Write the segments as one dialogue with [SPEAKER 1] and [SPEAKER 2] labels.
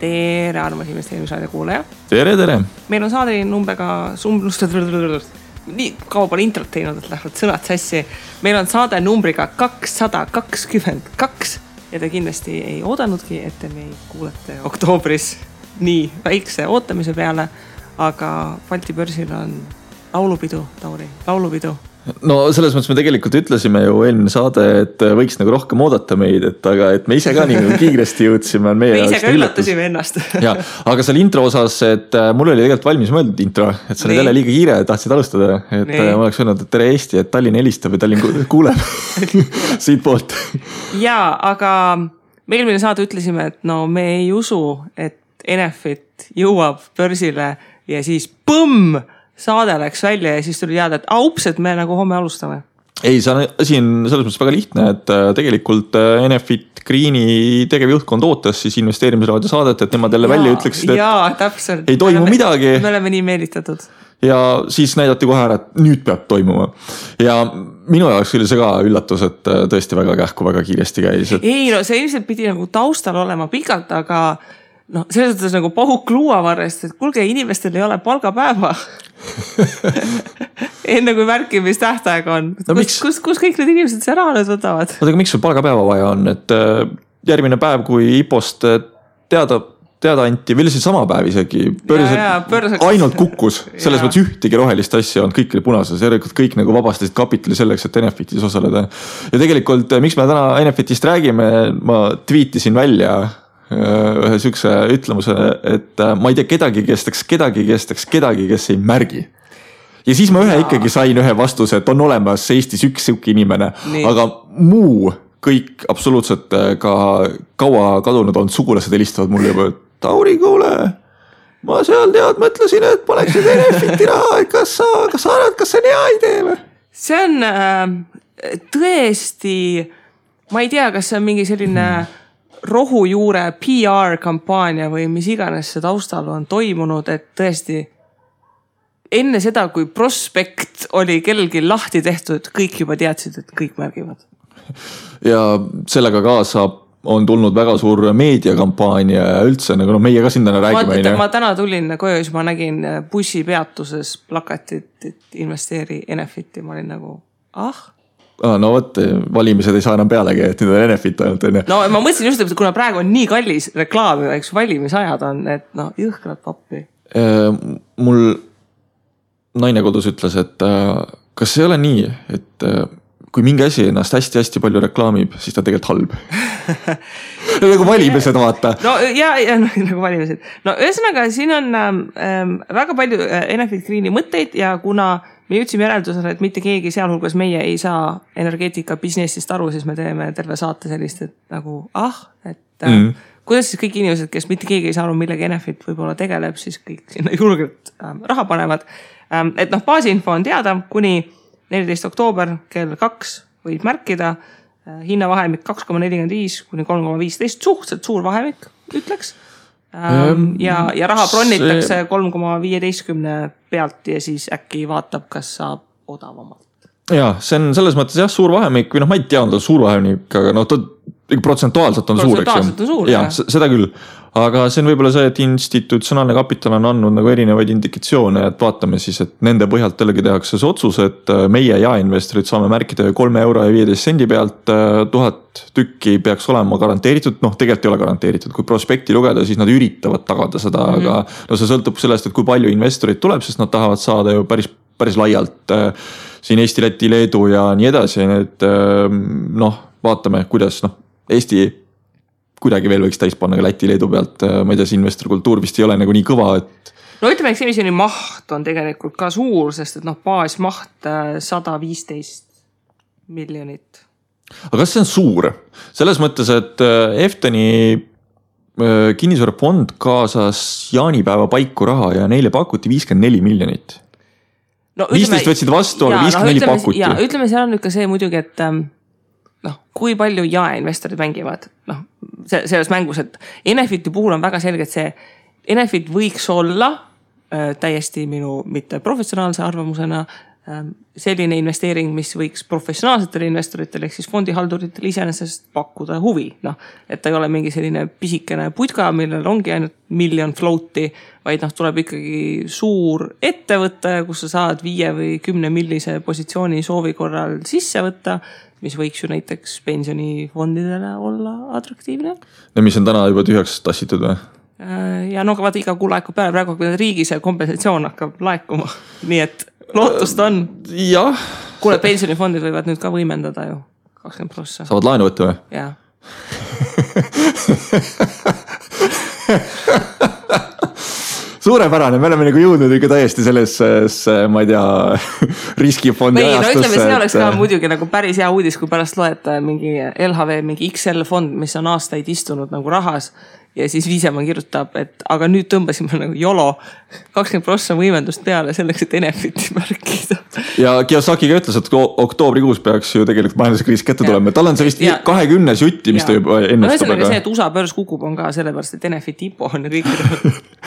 [SPEAKER 1] Tere, armas investeerimisradio kuulaja.
[SPEAKER 2] Tere.
[SPEAKER 1] Meil on saade numbriga nii kaua pole introt teinud, et lähevad sõnad sassi. Meil on saade numbriga 222 ja te kindlasti ei oodanudki, et te meid kuulete oktoobris nii väikse ootamise peale, aga Balti börsil on laulupidu, Tauri, laulupidu.
[SPEAKER 2] No selles mõttes me tegelikult ütlesime ju eelmine saade, et võiks nagu rohkem oodata meid, aga et me ise ka nii kiiresti jõudsime.
[SPEAKER 1] Me ise ka üllatasime ennast.
[SPEAKER 2] Ja, aga seal intro osas, et mul oli tegelikult valmis mõeldud intro, et see oli jälle liiga kiire, tahtsid alustada, et ma oleks öelnud, et tere Eesti, et Tallinn helistab ja Tallinn kuuleb siit poolt. Ja,
[SPEAKER 1] aga me eelmine saade ütlesime, et no me ei usu, et Enefit jõuab börsile ja siis põmm! Saade läks välja ja siis tuli teada, et ups, et me nagu homme alustame.
[SPEAKER 2] Ei, see asi on selles mõttes väga lihtne, et tegelikult Enefit Greeni tegevjuhtkond ootas siis investeerimisraadio saadet, et nemad jälle välja ütleksid, et
[SPEAKER 1] täpselt.
[SPEAKER 2] Ei toimu midagi.
[SPEAKER 1] Me oleme nii meelitatud.
[SPEAKER 2] Ja siis näidati kohe ära, et nüüd peab toimuma. Ja minu jaoks oli see ka üllatus, et tõesti väga kähku, väga kiiresti käis. Et...
[SPEAKER 1] Ei, no see ilmselt pidi nagu taustal olema pikalt, aga no selles mõttes nagu pahuk luuavarrest, et kulge, inimestel ei ole palgapäeva. Enne kui märkimistähtaeg on. No, kus kõik need inimesed see raha nüüd võtavad?
[SPEAKER 2] Aga miks sul palgapäeva vaja on? Et järgmine päev, kui IPOst teada anti, veel siis sama päev isegi, ainult kukkus. Selles mõttes ühtegi rohelist asja on, kõik oli punases. Järelikult kõik nagu vabastasid kapitali selleks, et Enefitis osaleda. Ja tegelikult, miks me täna Enefitist räägime, ma tweetisin välja ühe sükse ütlemuse, et ma ei tea kedagi, kes ei märgi. Ja siis ma ikkagi sain ühe vastuse, et on olemas Eestis üks siuke inimene, aga muu kõik absoluutselt ka kaua kadunud on sugulased helistavad mulle juba, et Tauri, kuule, ma seal mõtlesin, et paneksid Enefiti raha, et kas sa arvad, kas see on hea idee või?
[SPEAKER 1] See on tõesti, ma ei tea, kas see on mingi selline rohujuure PR-kampaania või mis iganes see taustal on toimunud, et tõesti enne seda, kui prospekt oli kellelgi lahti tehtud, kõik juba teadsid, et kõik märgivad.
[SPEAKER 2] Ja sellega kaasa on tulnud väga suur meediakampaania ja üldse, nagu meie ka sinna räägime.
[SPEAKER 1] Ma täna tulin koju, siis ma nägin bussipeatuses plakatit, et investeeri Enefiti. Ma olin nagu,
[SPEAKER 2] no võt, valimised ei saa enam pealegi, et nüüd on Enefit ainult.
[SPEAKER 1] No ma mõtlesin just, et kuna praegu on nii kallis reklaami, eks valimisajad on, et jõhkrad pappi.
[SPEAKER 2] Mul naine kodus ütles, et kas ei ole nii, et kui mingi asi ennast hästi-hästi palju reklaamib, siis ta tegelikult halb. Nagu valimised vaata.
[SPEAKER 1] No ja nagu valimised. No ühesõnaga, siin on väga palju Enefit Greeni mõtteid ja kuna me jõudsime järeldusele, et mitte keegi sealhulgas meie ei saa energeetika businessist aru, siis me teeme terve saate sellist, et nagu, kuidas siis kõik inimesed, kes mitte keegi ei saa aru, millega Enefit võib-olla tegeleb, siis kõik sinna julgelt raha panevad. Et baasinfo on teada, kuni 14. oktoober kell 2 võid märkida, hinnavahemik 2,45 kuni 3,15, suhteliselt suur vahemik, ütleks. Ja raha bronnitakse 3,15 pealt ja siis äkki vaatab, kas saab odavamalt.
[SPEAKER 2] Ja, see on selles mõttes suur vahemik, või ma ei tea, on ta suur vahemik, aga ta protsentuaalselt on suur, eks. Ja, seda küll. Aga see on võib-olla see, et institutsionaalne kapital on andnud nagu erinevaid indikatsioone, et vaatame siis, et nende põhjalt jällegi tehakse see otsus, et meie jaeinvestorid saame märkida 3,15 pealt 1000 tükki peaks olema garanteeritud, tegelikult ei ole garanteeritud, kui prospekti lugeda, siis nad üritavad tagada seda, aga see sõltub sellest, et kui palju investorid tuleb, sest nad tahavad saada ju päris laialt siin Eesti, Läti, Leedu ja nii edasi, et vaatame, kuidas Eesti kuidagi veel võiks täis panna ka Läti, Leedu pealt, ma ei tea, see investorkultuur vist ei ole nagu nii kõva, et...
[SPEAKER 1] No ütleme, eks emisjoni maht on tegelikult ka suur, sest et baasmaht 115 miljonit.
[SPEAKER 2] Aga kas see on suur? Selles mõttes, et Efteni kinnisvarafond kaasas jaanipäeva paiku raha ja neile pakuti 54 miljonit. 15 võtsid vastu, aga 54 pakuti.
[SPEAKER 1] Ja ütleme, seal on nüüd ka see muidugi, et kui palju jaeinvestorid mängivad selles mängus, et Enefiti puhul on väga selge, et see Enefit võiks olla täiesti minu mitte professionaalse arvamusena selline investeering, mis võiks professionaalsetele investoritele ehk siis fondihalduritele iseenesest pakkuda huvi. Noh, et ta ei ole mingi selline pisikene putka, millel ongi ainult miljon float'i, vaid tuleb ikkagi suur ettevõte, kus sa saad 5 või 10 millise positsiooni soovi korral sisse võtta, mis võiks ju näiteks pensionifondidele olla atraktiivne.
[SPEAKER 2] Ja mis on täna juba tühjaks tassitud või?
[SPEAKER 1] Ja no vaata iga kuu laekub peale, praegu riigi see kompensatsioon hakkab laekuma, nii et lootust on.
[SPEAKER 2] Jah.
[SPEAKER 1] Kuule, pensionifondid võivad nüüd ka võimendada ju 20%.
[SPEAKER 2] Saavad laenu võtta või?
[SPEAKER 1] Jaa.
[SPEAKER 2] Suurepärane, me oleme nagu jõudnud ikka täiesti sellesse, ma ei tea, riskifondi ajastusse.
[SPEAKER 1] No ütleme, see oleks ka muidugi nagu päris hea uudis, kui pärast loeta mingi LHV, mingi XL fond, mis on aastaid istunud nagu rahas ja siis Viisemaa kirjutab, et aga nüüd tõmbasime nagu YOLO 20% võimendust peale selleks, et Enefiti märkida.
[SPEAKER 2] Ja Kiyosakiga ütles, et oktoobrikuus peaks ju tegelikult majanduskriis kätte tulema. Tal on see vist 20 jutti, mis ta juba ennustab.
[SPEAKER 1] No see, et USA börs kukub on ka sellepärast, et Enefiti IPO on ja kõik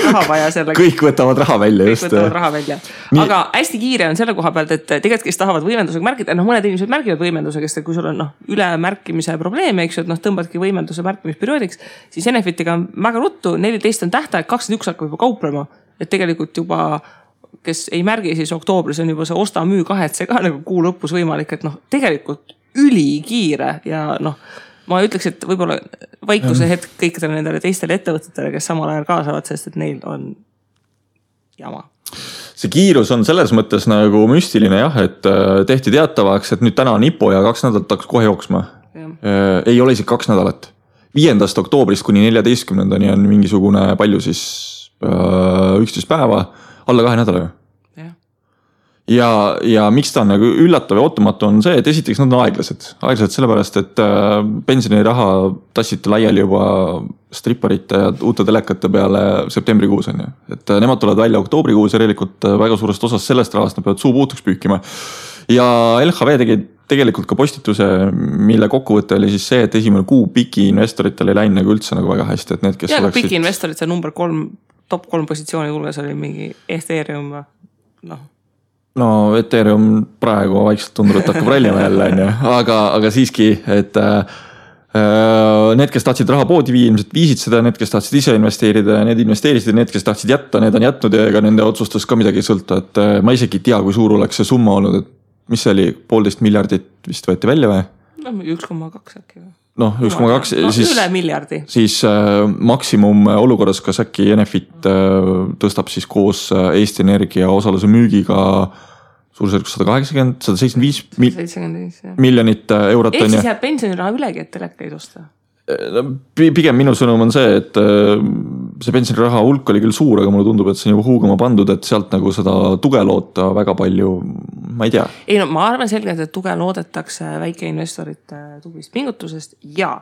[SPEAKER 1] raha vaja sellega.
[SPEAKER 2] Kõik võtavad raha välja.
[SPEAKER 1] Kõik võtavad raha välja. Aga hästi kiire on selle koha pealt, et tegelikult kes tahavad võimendusega märkida, mõned inimesed märgivad võimendusega, sest kui sul on ülemärkimise probleeme, eks ju, et tõmbadki võimenduse märkimisperioodiks, siis Enefitiga on väga ruttu, 14 on tähtaeg, 21 hakkab juba kauplema, et tegelikult juba, kes ei märgi, siis oktoobris on juba see osta-müü kahetse ka nagu kuu lõpus võimalik, et tegelikult ülikiire ja ma ütleks, et võib-olla vaikuse hetk kõikidele nendele teistele ettevõtetele, kes samal ajal kaasavad, sest et neil on jama.
[SPEAKER 2] See kiirus on selles mõttes nagu müstiline jah, et tehti teatavaks, et nüüd täna on IPO ja 2 nädalat hakkas kohe jooksma. Ei ole isegi 2 nädalat. 5. oktoobrist kuni 14. on mingisugune palju siis 11 päeva, alla 2 nädala. Ja miks ta on nagu üllatav ja ootamatu on see, et esiteks nad on aeglased. Aeglased sellepärast, et pensioniraha tassiti laiali juba stripparite ja uute telekate peale septembrikuus on. Et nemad tulevad välja oktoobrikuus ja tegelikult väga suurest osast sellest rahast nad peavad suu puutuks püükima. Ja LHV tegi tegelikult ka postituse, mille kokkuvõte oli siis see, et esimene kuu piki investoritel ei läinud nagu üldse nagu väga hästi. Et need, kes
[SPEAKER 1] ja oleksid... piki investorid, see number 3, top 3 positsiooni hulgas oli mingi Ethereum.
[SPEAKER 2] No Ethereum praegu vaikselt tundub, et hakkab rallima jälle, aga siiski, et need, kes tahtsid raha poodi viia, ilmselt viisid seda, need, kes tahtsid ise investeerida ja need investeerisid, need, kes tahtsid jätta, need on jätnud ja ega nende otsustust ka midagi ei sõlta, et ma isegi ei tea, kui suur oleks see summa olnud, et mis see oli, 1,5 miljardit vist võeti välja või?
[SPEAKER 1] 1,2 äkki või?
[SPEAKER 2] 1,2 siis,
[SPEAKER 1] üle miljardi.
[SPEAKER 2] Siis maksimum olukorras, kas äkki Enefit tõstab siis koos Eesti Energia osaluse müügiga suurusjärgus 175 miljonit eurot.
[SPEAKER 1] Ehk siis jääb pensioniraha ülegi, et telekaid osta?
[SPEAKER 2] Pigem minu sõnum on see, et see pensioniraha hulk oli küll suur, aga mulle tundub, et see on juba huugama pandud, et sealt nagu seda tuge loota väga palju, ma ei tea.
[SPEAKER 1] Ei no ma arvan selgelt, et tuge loodetakse väikeinvestorite tublist pingutusest ja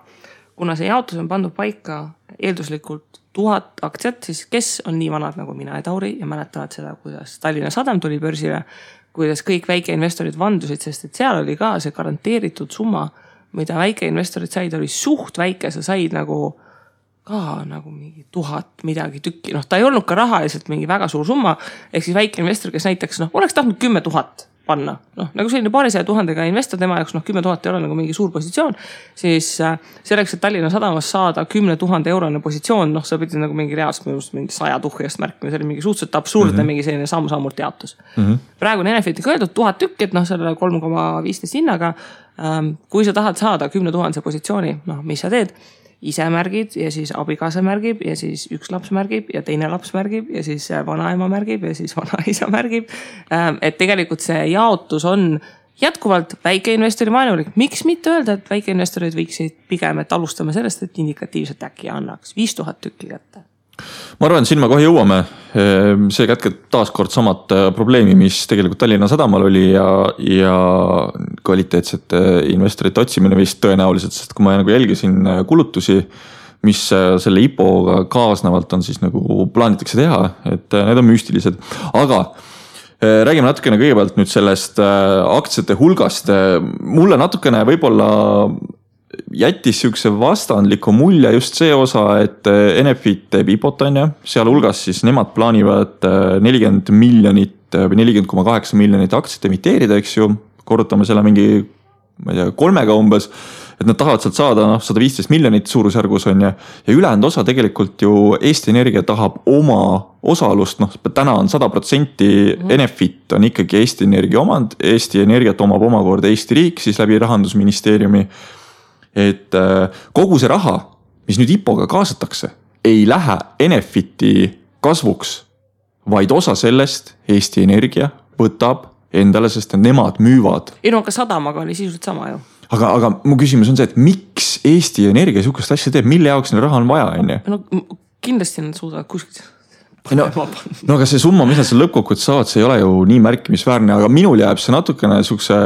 [SPEAKER 1] kuna see jaotus on pandud paika eelduslikult 1000 aktsiat, siis kes on nii vanad nagu mina ja Tauri ja mäletavad seda, kuidas Tallinna Sadam tuli börsile, kuidas kõik väikeinvestorid vandusid, sest et seal oli ka see garanteeritud summa, mida väikeinvestorid said, oli suht väike, sa said nagu ka nagu mingi 1000 midagi tükki. Ta ei olnud ka rahaliselt mingi väga suur summa, ehk siis väikeinvestor, kes näiteks oleks tahtnud 10 000 panna, nagu selline 200 000 investor, tema jaoks 10 000 ei ole nagu mingi suur positsioon, siis selleks, et Tallinna Sadamas saada 10 000 eurone positsioon, sa pidid nagu mingi reaalselt mingi 100 tuhjast märkima, see oli mingi suhteliselt absurdne mingi selline samm-sammult jaotus. Praegu on Enefitiga öeldud 1000 tükki, et selle 3,15 hinnaga, kui sa tahad saada 10 000 positsiooni, mis sa teed? Ise märgid ja siis abikaasa märgib ja siis üks laps märgib ja teine laps märgib ja siis vanaema märgib ja siis vanaisa märgib. Et tegelikult see jaotus on jätkuvalt väikeinvestori vaenulik. Miks mitte öelda, et väikeinvestorid võiksid pigem, et alustame sellest, et indikatiivselt äkki annaks 5000 tükki kätte?
[SPEAKER 2] Ma arvan, siin me kohe jõuame. See kätkeb taaskord samad probleemi, mis tegelikult Tallinna Sadamal oli ja kvaliteetsete investorite otsimine vist tõenäoliselt, sest kui ma nagu jälgisin kulutusi, mis selle IPO-ga kaasnevalt on siis nagu plaanitakse teha, et need on müstilised. Aga räägime natukene kõigepealt nüüd sellest aktsiate hulgast. Mulle natukene võib-olla jättis siukse vastandliku mulje just see osa, et Enefit teeb IPO-t on ju, sealhulgas siis nemad plaanivad 40 miljonit või 40,8 miljonit aktsiat emiteerida, eks ju, korrutame selle mingi, ma ei tea, 3-ga umbes, et nad tahavad sealt saada 115 miljonit suurusjärgus on ja ülejäänud osa tegelikult ju Eesti Energia tahab oma osalust, täna on 100% Enefit on ikkagi Eesti Energia omand, Eesti Energiat omab omakorda Eesti riik siis läbi Rahandusministeeriumi, et kogu see raha, mis nüüd IPO-ga kaasatakse, ei lähe Enefiti kasvuks, vaid osa sellest Eesti Energia võtab endale, sest nemad müüvad.
[SPEAKER 1] Ei no, aga sadamaga oli sisuliselt sama ju.
[SPEAKER 2] Aga mu küsimus on see, et miks Eesti Energia sihukest asja teeb, mille jaoks neil raha on vaja, on ju?
[SPEAKER 1] No kindlasti nad suudavad kuskilt.
[SPEAKER 2] No aga see summa, mis nad seal lõppkokkuvõttes saavad, see ei ole ju nii märkimisväärne, aga minul jääb see natukene sihukese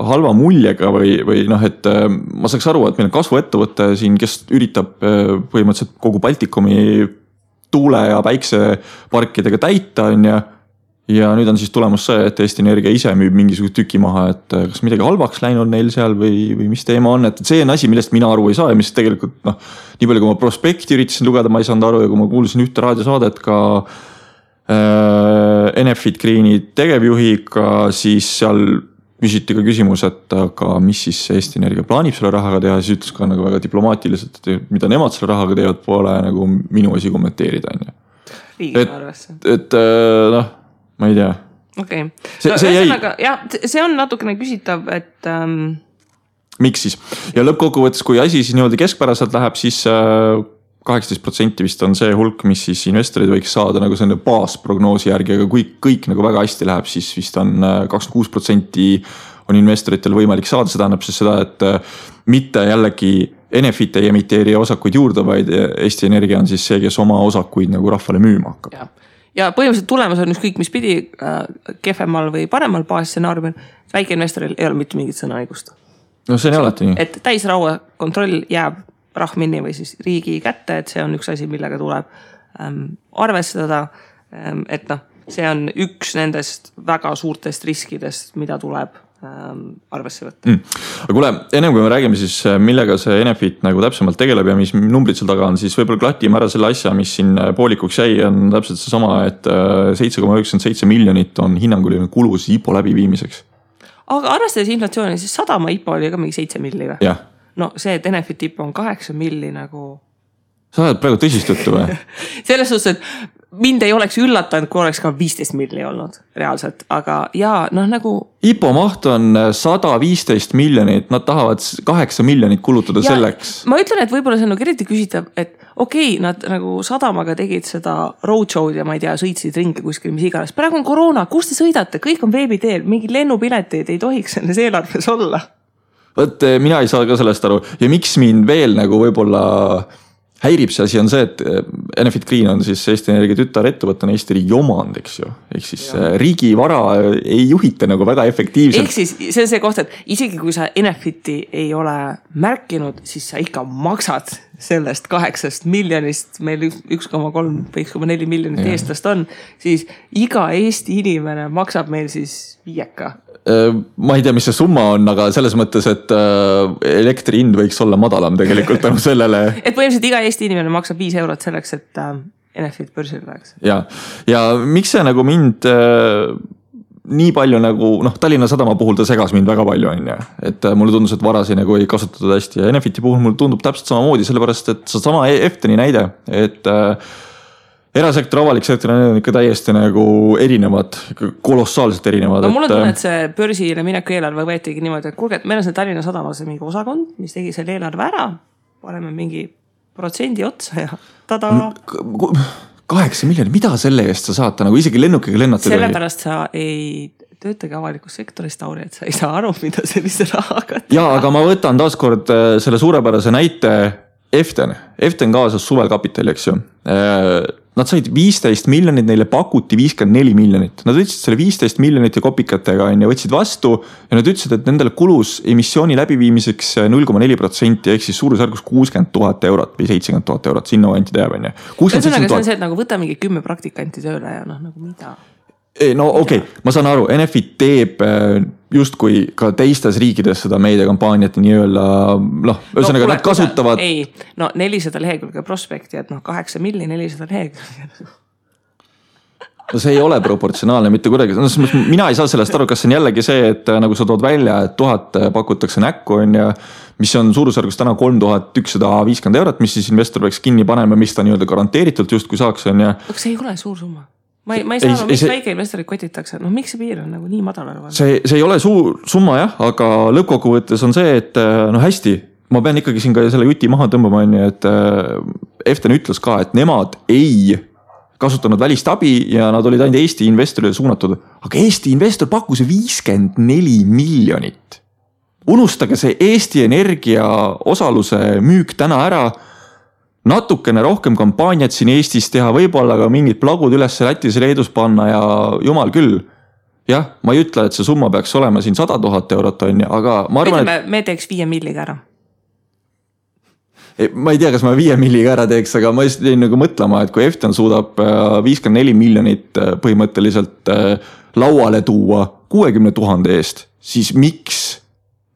[SPEAKER 2] halva muljega või et ma saaks aru, et meil on kasvuettevõte siin, kes üritab põhimõtteliselt kogu Baltikumi tuule- ja päikseparkidega täita, on ju. Ja nüüd on siis tulemus see, et Eesti Energia ise müüb mingisugust tüki maha, et kas midagi halvaks läinud neil seal või mis teema on, et see on asi, millest mina aru ei saa ja mis tegelikult nii palju kui ma prospekti üritasin lugeda, ma ei saanud aru ja kui ma kuulsin ühte raadiosaadet ka Enefit Greeni tegevjuhiga, siis seal küsiti ka küsimus, et aga mis siis Eesti Energia plaanib selle rahaga teha, siis ütles ka nagu väga diplomaatiliselt, et mida nemad selle rahaga teevad, pole nagu minu asi kommenteerida. Et ma ei tea.
[SPEAKER 1] Okei. See on natukene küsitav, et...
[SPEAKER 2] Miks siis? Ja lõppkokkuvõttes, kui asi siis niimoodi keskpäraselt läheb, siis 18% vist on see hulk, mis siis investorid võiks saada nagu selline baasprognoosi järgi, aga kui kõik nagu väga hästi läheb, siis vist on 26% on investoritel võimalik saada. See tähendab siis seda, et mitte jällegi Enefit ei emiteeri osakuid juurde, vaid Eesti Energia on siis see, kes oma osakuid nagu rahvale müüma hakkab.
[SPEAKER 1] Ja põhimõtteliselt tulemus on ükskõik mis pidi kehvemal või paremal baasstsenaariumil, väikeinvestoril ei ole mitte mingit sõnaõigust.
[SPEAKER 2] No see on alati nii.
[SPEAKER 1] Et täisraua kontroll jääb rahminni või siis riigi kätte, et see on üks asi, millega tuleb arvestada, et see on üks nendest väga suurtest riskidest, mida tuleb arvesse võtta.
[SPEAKER 2] Aga kuule, enne kui me räägime siis, millega see Enefit nagu täpsemalt tegeleb ja mis numbrid seal taga on, siis võib-olla klatime ära selle asja, mis siin poolikuks jäi, on täpselt see sama, et 7,97 miljonit on hinnanguline kulus IPO läbiviimiseks.
[SPEAKER 1] Aga arvestades inflatsiooni, siis sadama IPO oli ka mingi 7 milli või?
[SPEAKER 2] Jah.
[SPEAKER 1] No see, et Enefit IPO on 8 milli nagu...
[SPEAKER 2] Sa oled praegu tõsist juttu või?
[SPEAKER 1] Selles suhtes, et mind ei oleks üllatanud, kui oleks ka 15 milli olnud reaalselt, aga nagu...
[SPEAKER 2] IPO maht on 115 miljonit, nad tahavad 8 miljonit kulutada selleks.
[SPEAKER 1] Ma ütlen, et võib-olla see on eriti küsitav, et okei, nad nagu sadamaga tegid seda roadshow'd ja ma ei tea, sõitsid ringi kuskil, mis iganes. Praegu on koroona, kus te sõidate? Kõik on veebiteel, mingi lennupileteid ei tohiks selles eelarves olla.
[SPEAKER 2] Võt, mina ei saa ka sellest aru. Ja miks mind veel nagu võib-olla... häirib see asi on see, et Enefit Green on siis Eesti Energia tütarettevõttena Eesti riigi omand, eks ju. Ehk siis riigi vara ei juhita nagu väga efektiivselt.
[SPEAKER 1] Ehk siis see on see koht, et isegi kui sa Enefiti ei ole märkinud, siis sa ikka maksad sellest 8 miljonist, meil 1,3 või 1,4 miljonit eestlast on, siis iga Eesti inimene maksab meil siis 5.
[SPEAKER 2] Ma ei tea, mis see summa on, aga selles mõttes, et elektri hind võiks olla madalam tegelikult tänu sellele.
[SPEAKER 1] Et põhimõtteliselt iga Eesti inimene maksab 5 eurot selleks, et Enefit börsil läheks.
[SPEAKER 2] Ja miks see nagu mind nii palju nagu, Tallinna Sadama puhul ta segas mind väga palju, on ju. Et mulle tundus, et varasi nagu ei kasutatud hästi ja Enefiti puhul mulle tundub täpselt samamoodi, sellepärast, et see sama Efteni näide, et erasektor, avalik sektor on ikka täiesti nagu erinevad, kolossaalselt erinevad.
[SPEAKER 1] No mul on tunne, et see börsile mineku eelarve võetigi niimoodi, et kuulge, et meil on see Tallinna Sadamas mingi osakond, mis tegi selle eelarve ära, paneme mingi protsendi otsa ja tada.
[SPEAKER 2] 8 miljonit, mida selle eest sa saad nagu isegi lennukiga lennata?
[SPEAKER 1] Sellepärast sa ei töötage avalikus sektoris, Tauri, et sa ei saa aru, mida sellise rahaga teha.
[SPEAKER 2] Ja, aga ma võtan taaskord selle suurepärase näite Eften kaasas suvel kapitali, eks ju. Nad said 15 miljonit, neile pakuti 54 miljonit. Nad võtsid selle 15 miljonit ja kopikatega ja võtsid vastu ja nad ütlesid, et nendele kulus emissiooni läbiviimiseks 0,4% ehk siis suurusjärgus 60 000 eurot või 70 000 eurot, sinna anti teab.
[SPEAKER 1] Ühesõnaga, see on see, et nagu võta mingi 10 praktikanti tööle ja nagu mida?
[SPEAKER 2] no okei, ma saan aru, Enefit teeb justkui ka teistes riikides seda meediakampaaniat nii-öelda, ühesõnaga nad kasutavad.
[SPEAKER 1] Ei, 400 lehekülge prospekti, et 8 milli 400 lehekülge.
[SPEAKER 2] No see ei ole proportsionaalne mitte kuidagi. Mina ei saa sellest aru, kas see on jällegi see, et nagu sa tood välja, et 1000 pakutakse näkku on ja mis on suurusjärgus täna 3150 €, mis siis investor peaks kinni panema, mis ta nii-öelda garanteeritult justkui saaks on ja.
[SPEAKER 1] Aga see ei ole suur summa. Ma ei saa, miks väike investorid kotitakse. Miks see piir on nagu nii madal?
[SPEAKER 2] See ei ole suur summa jah, aga lõppkokkuvõttes on see, et hästi, ma pean ikkagi siin ka selle juti maha tõmbama, et Eften ütles ka, et nemad ei kasutanud välist abi ja nad olid ainult Eesti investorile suunatud. Aga Eesti investor pakkus 54 miljonit. Unustage see Eesti Energia osaluse müük täna ära. Natukene rohkem kampaaniat siin Eestis teha, võib-olla ka mingid plagud üles Lätis ja Leedus panna ja jumal küll. Jah, ma ei ütle, et see summa peaks olema siin 100 000 € on ja, aga ma arvan,
[SPEAKER 1] et me teeks 5 milliga ära.
[SPEAKER 2] Ma ei tea, kas ma 5 milliga ära teeks, aga ma just jäin nagu mõtlema, et kui Eften suudab 54 miljonit põhimõtteliselt lauale tuua 60 000 eest, siis miks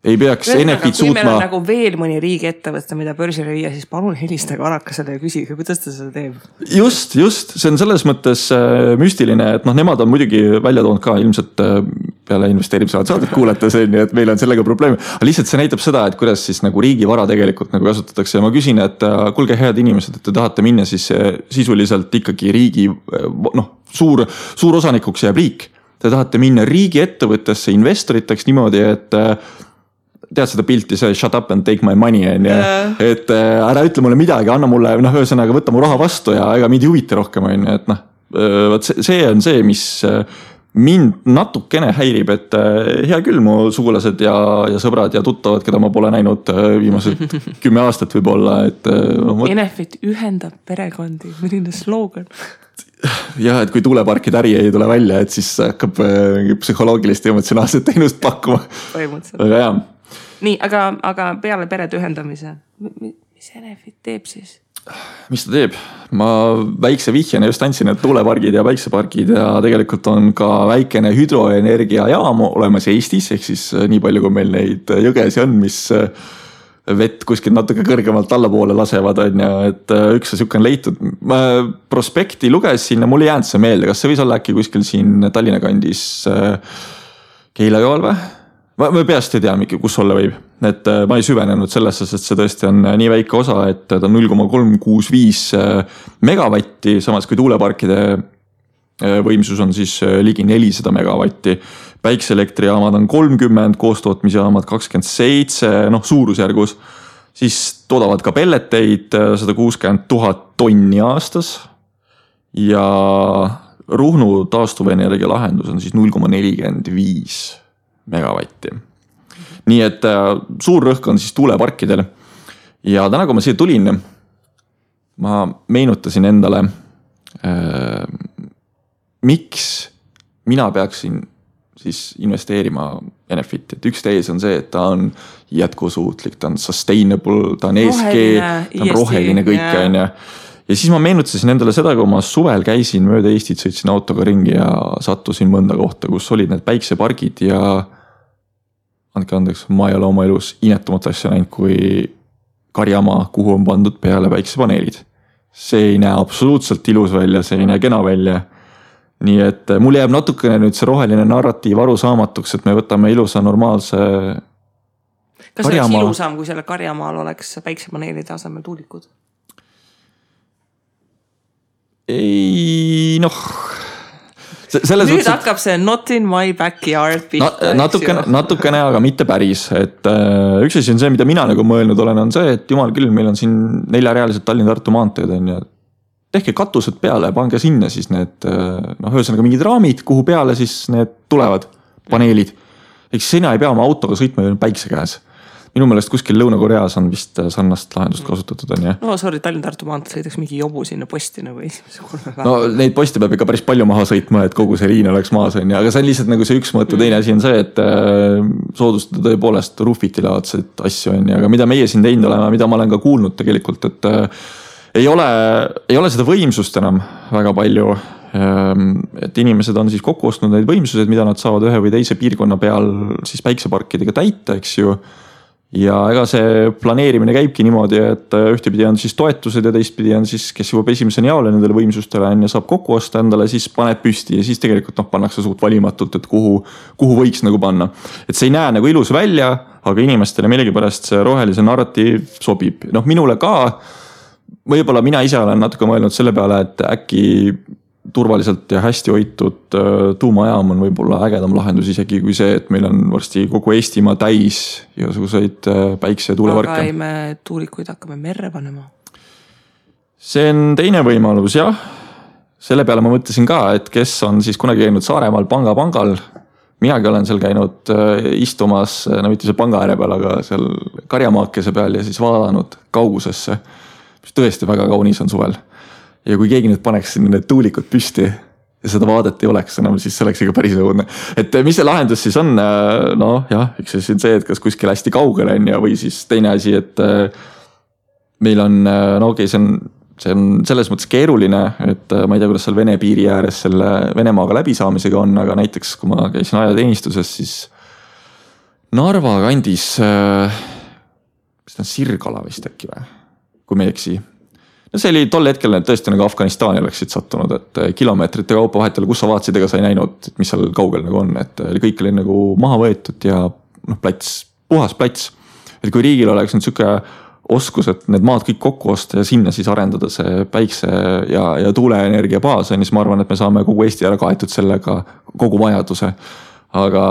[SPEAKER 2] ei peaks Enefit suutma.
[SPEAKER 1] Kui meil on nagu veel mõni riigi ettevõtte, mida börsile viia, siis palun helistage Arakasele ja küsige, kuidas ta seda teeb.
[SPEAKER 2] Just, see on selles mõttes müstiline, et nemad on muidugi välja toonud ka ilmselt peale investeerimised saadet kuulata see, et meil on sellega probleemi. Aga lihtsalt see näitab seda, et kuidas siis nagu riigi vara tegelikult nagu kasutatakse ja ma küsin, et kuulge head inimesed, et te tahate minna siis sisuliselt ikkagi riigi suur osanikuks jääb riik. Te tahate minna riigi ettevõttesse investoriteks niimoodi, et tead seda pilti, see shut up and take my money on ja et ära ütle mulle midagi, anna mulle, ühesõnaga võtta mu raha vastu ja ega mind ei huvita rohkem on, et see on see, mis mind natukene häirib, et hea küll mu sugulased ja sõbrad ja tuttavad, keda ma pole näinud viimased 10 aastat võib-olla, et
[SPEAKER 1] Enefit ühendab perekondi, milline slogan.
[SPEAKER 2] Ja, et kui tuuleparkide äri ei tule välja, et siis hakkab psühholoogilist ja emotsionaalset teenust pakkuma. Aga jah.
[SPEAKER 1] Nii, aga peale perede ühendamise, mis Enefit teeb siis?
[SPEAKER 2] Mis ta teeb? Ma väikse vihjana just andsin, et tuulepargid ja päiksepargid ja tegelikult on ka väikene hüdroenergia jaam olemas Eestis, ehk siis nii palju, kui meil neid jõgesi on, mis vett kuskil natuke kõrgemalt allapoole lasevad, on ja et üks siuke on leitud. Ma prospekti lugesin ja mul ei jäänud see meelde, kas see võis olla äkki kuskil siin Tallinna kandis Keila joal või? Ma peast ei tea, kus olla võib. Et ma ei süvenenud sellesse, sest see tõesti on nii väike osa, et ta on 0,365 megavatti, samas kui tuuleparkide võimsus on siis ligi 400 megavatti. Päikseelektrijaamad on 30, koostootmisjaamad 27, suurusjärgus. Siis toodavad ka pelleteid 160 000 tonni aastas ja Ruhnu taastuvenergia lahendus on siis 0,45 megavatti. Nii et suur rõhk on siis tuuleparkidel. Ja täna, kui ma siia tulin, ma meenutasin endale, miks mina peaksin siis investeerima Enefit. Et üks tees on see, et ta on jätkusuutlik, ta on sustainable, ta on ESG, ta on roheline kõik on ja siis ma meenutasin endale seda, kui ma suvel käisin mööda Eestit, sõitsin autoga ringi ja sattusin mõnda kohta, kus olid need päiksepargid ja andke andeks, ma ei ole oma elus inetumat asja näinud kui karjamaa, kuhu on pandud peale päiksepaneelid. See ei näe absoluutselt ilus välja, see ei näe kena välja. Nii et mul jääb natukene nüüd see roheline narratiiv arusaamatuks, et me võtame ilusa normaalse
[SPEAKER 1] Kas oleks ilusam, kui selle karjamaal oleks päiksepaneelide asemel tuulikud?
[SPEAKER 2] Ei,
[SPEAKER 1] nüüd hakkab see not in my backyard pihta.
[SPEAKER 2] Natukene, aga mitte päris. Et üks asi on see, mida mina nagu mõelnud olen, on see, et jumal küll, meil on siin 4-realised Tallinna-Tartu maanteed on ja tehke katused peale, pange sinna siis need, ühesõnaga mingid raamid, kuhu peale siis need tulevad paneelid. Eks sina ei pea oma autoga sõitma päikse käes. Minu meelest kuskil Lõuna-Koreas on vist sarnast lahendust kasutatud on, jah?
[SPEAKER 1] No sorry, Tallinna-Tartu maantel sõidaks mingi jobu sinna posti nagu esimese 3 päeva.
[SPEAKER 2] No neid posti peab ikka päris palju maha sõitma, et kogu see liin oleks maas on, aga see on lihtsalt nagu see üks mõte. Teine asi on see, et soodustada tõepoolest ruufitilaadseid asju on, aga mida meie siin teinud oleme, mida ma olen ka kuulnud tegelikult, et ei ole seda võimsust enam väga palju et inimesed on siis kokku ostnud neid võimsused, mida nad saavad ühe või teise piirkonna peal siis päikseparkidega täita, eks ju. Ja ega see planeerimine käibki niimoodi, et ühtepidi on siis toetused ja teistpidi on siis, kes jõuab esimeseni jaole nendele võimsustele ja saab kokku osta endale, siis paneb püsti ja siis tegelikult pannakse suht valimatult, et kuhu võiks nagu panna. Et see ei näe nagu ilus välja, aga inimestele millegipärast see rohelise narratiiv sobib. Minule ka, võib-olla mina ise olen natuke mõelnud selle peale, et äkki turvaliselt ja hästi hoitud tuumajaam on võib-olla ägedam lahendus isegi kui see, et meil on varsti kogu Eestimaa täis igasuguseid päikse- ja tuuleparke.
[SPEAKER 1] Aga ei me tuulikuid hakkame merre panema.
[SPEAKER 2] See on teine võimalus, jah. Selle peale ma mõtlesin ka, et kes on siis kunagi käinud Saaremaal pangal. Minagi olen seal käinud istumas, mitte seal panga ääre peal, aga seal karjamaakese peal ja siis vaadanud kaugusesse. Tõesti väga kaunis on suvel. Ja kui keegi nüüd paneks sinna need tuulikud püsti ja seda vaadet ei oleks enam, siis see oleks ikka päris õudne. Et mis see lahendus siis on? Üks see on see, et kas kuskil hästi kaugel on ja või siis teine asi, et meil on, see on selles mõttes keeruline, et ma ei tea, kuidas seal Vene piiri ääres selle Venemaaga läbisaamisega on, aga näiteks kui ma käisin ajateenistuses, siis Narva kandis, mis ta on Sirgala vist äkki või, kui me ei eksi. See oli tol hetkel tõesti nagu Afganistani oleksid sattunud, et kilomeetrite kaupa vahetele, kus sa vaatasid, ega sa ei näinud, mis seal kaugel nagu on, et kõik oli nagu maha võetud ja plats, puhas plats. Et kui riigil oleks nüüd siuke oskus, et need maad kõik kokku osta ja sinna siis arendada see päikse ja tuuleenergia baas, siis ma arvan, et me saame kogu Eesti ära kaetud sellega kogu vajaduse. Aga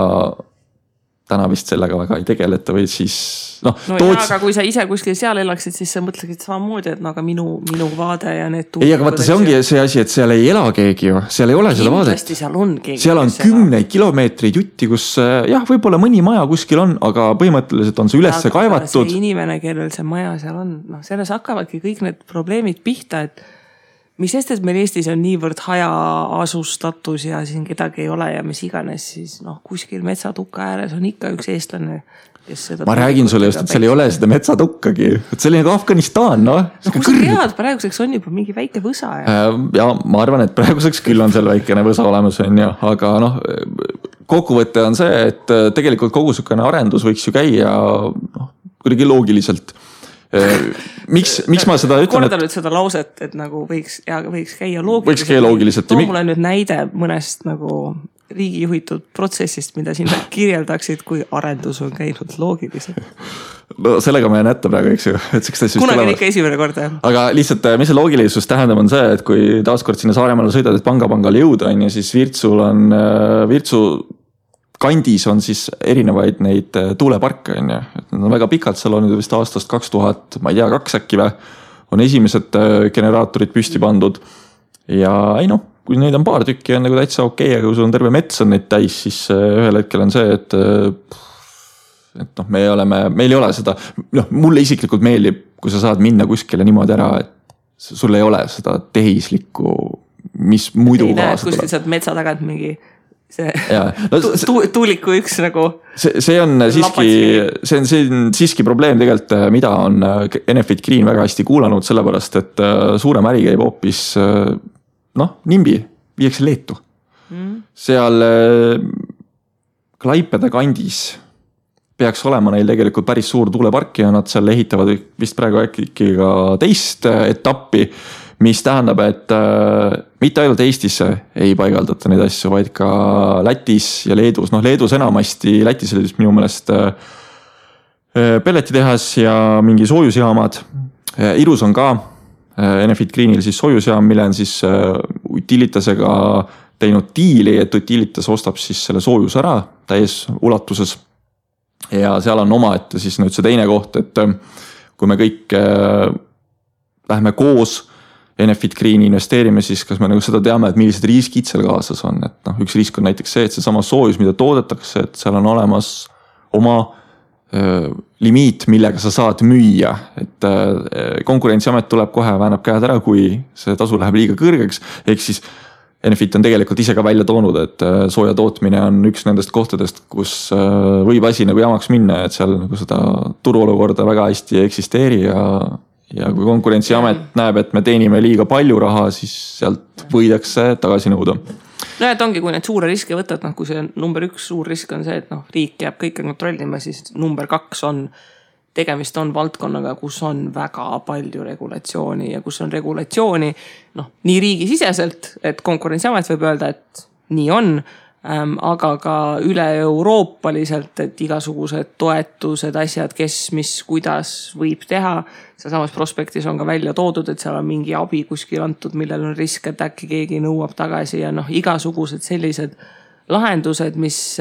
[SPEAKER 2] täna vist sellega väga ei tegeleta või siis
[SPEAKER 1] aga kui sa ise kuskil seal elaksid, siis sa mõtleksid samamoodi, et aga minu vaade ja need
[SPEAKER 2] ei, aga vaata, see ongi see asi, et seal ei ela keegi ju, seal ei ole seda vaadet. Seal on kümneid kilomeetreid jutti, kus võib-olla mõni maja kuskil on, aga põhimõtteliselt on see ülesse kaevatud.
[SPEAKER 1] See inimene, kellel see maja seal on, selles hakkavadki kõik need probleemid pihta, et mis sest, et meil Eestis on niivõrd hajaasustatus ja siin kedagi ei ole ja mis iganes, siis kuskil metsatukka ääres on ikka üks eestlane, kes seda...
[SPEAKER 2] Ma räägin sulle just, et seal ei ole seda metsatukkagi. Et see oli nagu Afganistan,
[SPEAKER 1] Kus sa tead, praeguseks on juba mingi väike võsa.
[SPEAKER 2] Ja ma arvan, et praeguseks küll on seal väikene võsa olemas, aga kokkuvõte on see, et tegelikult kogu sükene arendus võiks ju käia kuidagi loogiliselt. Miks ma seda ütlen?
[SPEAKER 1] Korda nüüd seda lauset, et nagu võiks käia loogiliselt. Too mulle nüüd näide mõnest nagu riigi juhitud protsessist, mida siin kirjeldaksid, kui arendus on käinud loogiliselt.
[SPEAKER 2] Sellega ma jään ette praegu, eks ju.
[SPEAKER 1] Kunagi on ikka esimene kord.
[SPEAKER 2] Aga lihtsalt, mis see loogilisus tähendab, on see, et kui taaskord sinna Saaremaale sõidad, et pangale jõuda, siis Virtsu kandis on siis erinevaid neid tuuleparke, Need on väga pikalt, seal on vist aastast 2000, ma ei tea, 2 äkki või, on esimesed generaatorid püsti pandud. Ja kui neid on paar tükki, on nagu täitsa okei, aga kui sul on terve mets on neid täis, siis ühel hetkel on see, et meil ei ole seda, mulle isiklikult meeldib, kui sa saad minna kuskile niimoodi ära, et sul ei ole seda tehislikku, mis muidu kaasa tuleb.
[SPEAKER 1] Kuskil saad metsa tagant mingi tuuliku üks nagu
[SPEAKER 2] see on siiski probleem tegelikult, mida on Enefit Green väga hästi kuulanud, sellepärast, et suurem äri käib hoopis nimbi, viiakse Leetu. Seal Klaipeda kandis peaks olema neil tegelikult päris suur tuulepark ja nad seal ehitavad vist praegu äkki ka teist etappi, mis tähendab, et mitte ainult Eestisse ei paigaldata neid asju, vaid ka Lätis ja Leedus. Leedus enamasti, Lätis oli minu meelest pelletitehas ja mingi soojusjaamad. Irus on ka Enefit Greenil siis soojusjaam, mille on siis Utilitasega teinud diili, et Utilitas ostab siis selle soojus ära täies ulatuses. Ja seal on omaette siis nüüd see teine koht, et kui me kõik lähme koos Enefit Greeni investeerime, siis kas me nagu seda teame, et millised riskid seal kaasas on. Et üks risk on näiteks see, et see sama soojus, mida toodetakse, et seal on olemas oma limiit, millega sa saad müüa. Et konkurentsiamet tuleb kohe, väänab käed ära, kui see tasu läheb liiga kõrgeks. Ehk siis Enefit on tegelikult ise ka välja toonud, et sooja tootmine on üks nendest kohtadest, kus võib asi nagu jamaks minna, et seal nagu seda turuolukorda väga hästi ei eksisteeri ja kui Konkurentsiamet näeb, et me teenime liiga palju raha, siis sealt võidakse tagasi nõuda.
[SPEAKER 1] No et ongi, kui need suure riske võtad, kui see number 1 suur risk on see, et riik jääb kõike kontrollima, siis number 2 on, tegemist on valdkonnaga, kus on väga palju regulatsiooni ja kus on regulatsiooni nii riigisiseselt, et Konkurentsiamet võib öelda, et nii on, aga ka üle euroopaliselt, et igasugused toetused, asjad, kes, mis, kuidas võib teha. Samas prospektis on ka välja toodud, et seal on mingi abi kuskil antud, millel on risk, et äkki keegi nõuab tagasi ja igasugused sellised lahendused, mis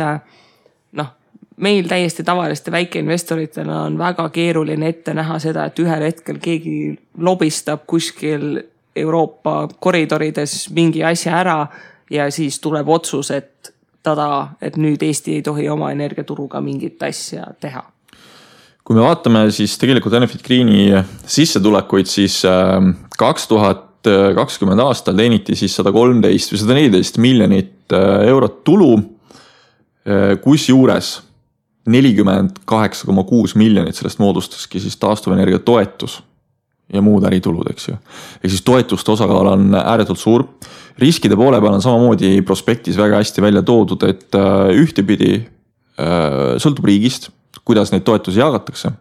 [SPEAKER 1] meil täiesti tavaliste väikeinvestoritena on väga keeruline ette näha seda, et ühel hetkel keegi lobistab kuskil Euroopa koridorides mingi asja ära ja siis tuleb otsus, et nüüd Eesti ei tohi oma energiaturuga mingit asja teha.
[SPEAKER 2] Kui me vaatame siis tegelikult Enefit Greeni sissetulekuid, siis 2020 aastal teeniti siis 113 või 114 miljonit eurot tulu, kus juures 48,6 miljonit sellest moodustaski siis taastuvenergia toetus ja muud äritulud, eks ju. Ehk siis toetuste osakaal on ääretult suur. Riskide poole peal on samamoodi prospektis väga hästi välja toodud, et ühtepidi sõltub riigist, kuidas neid toetusi jagatakse.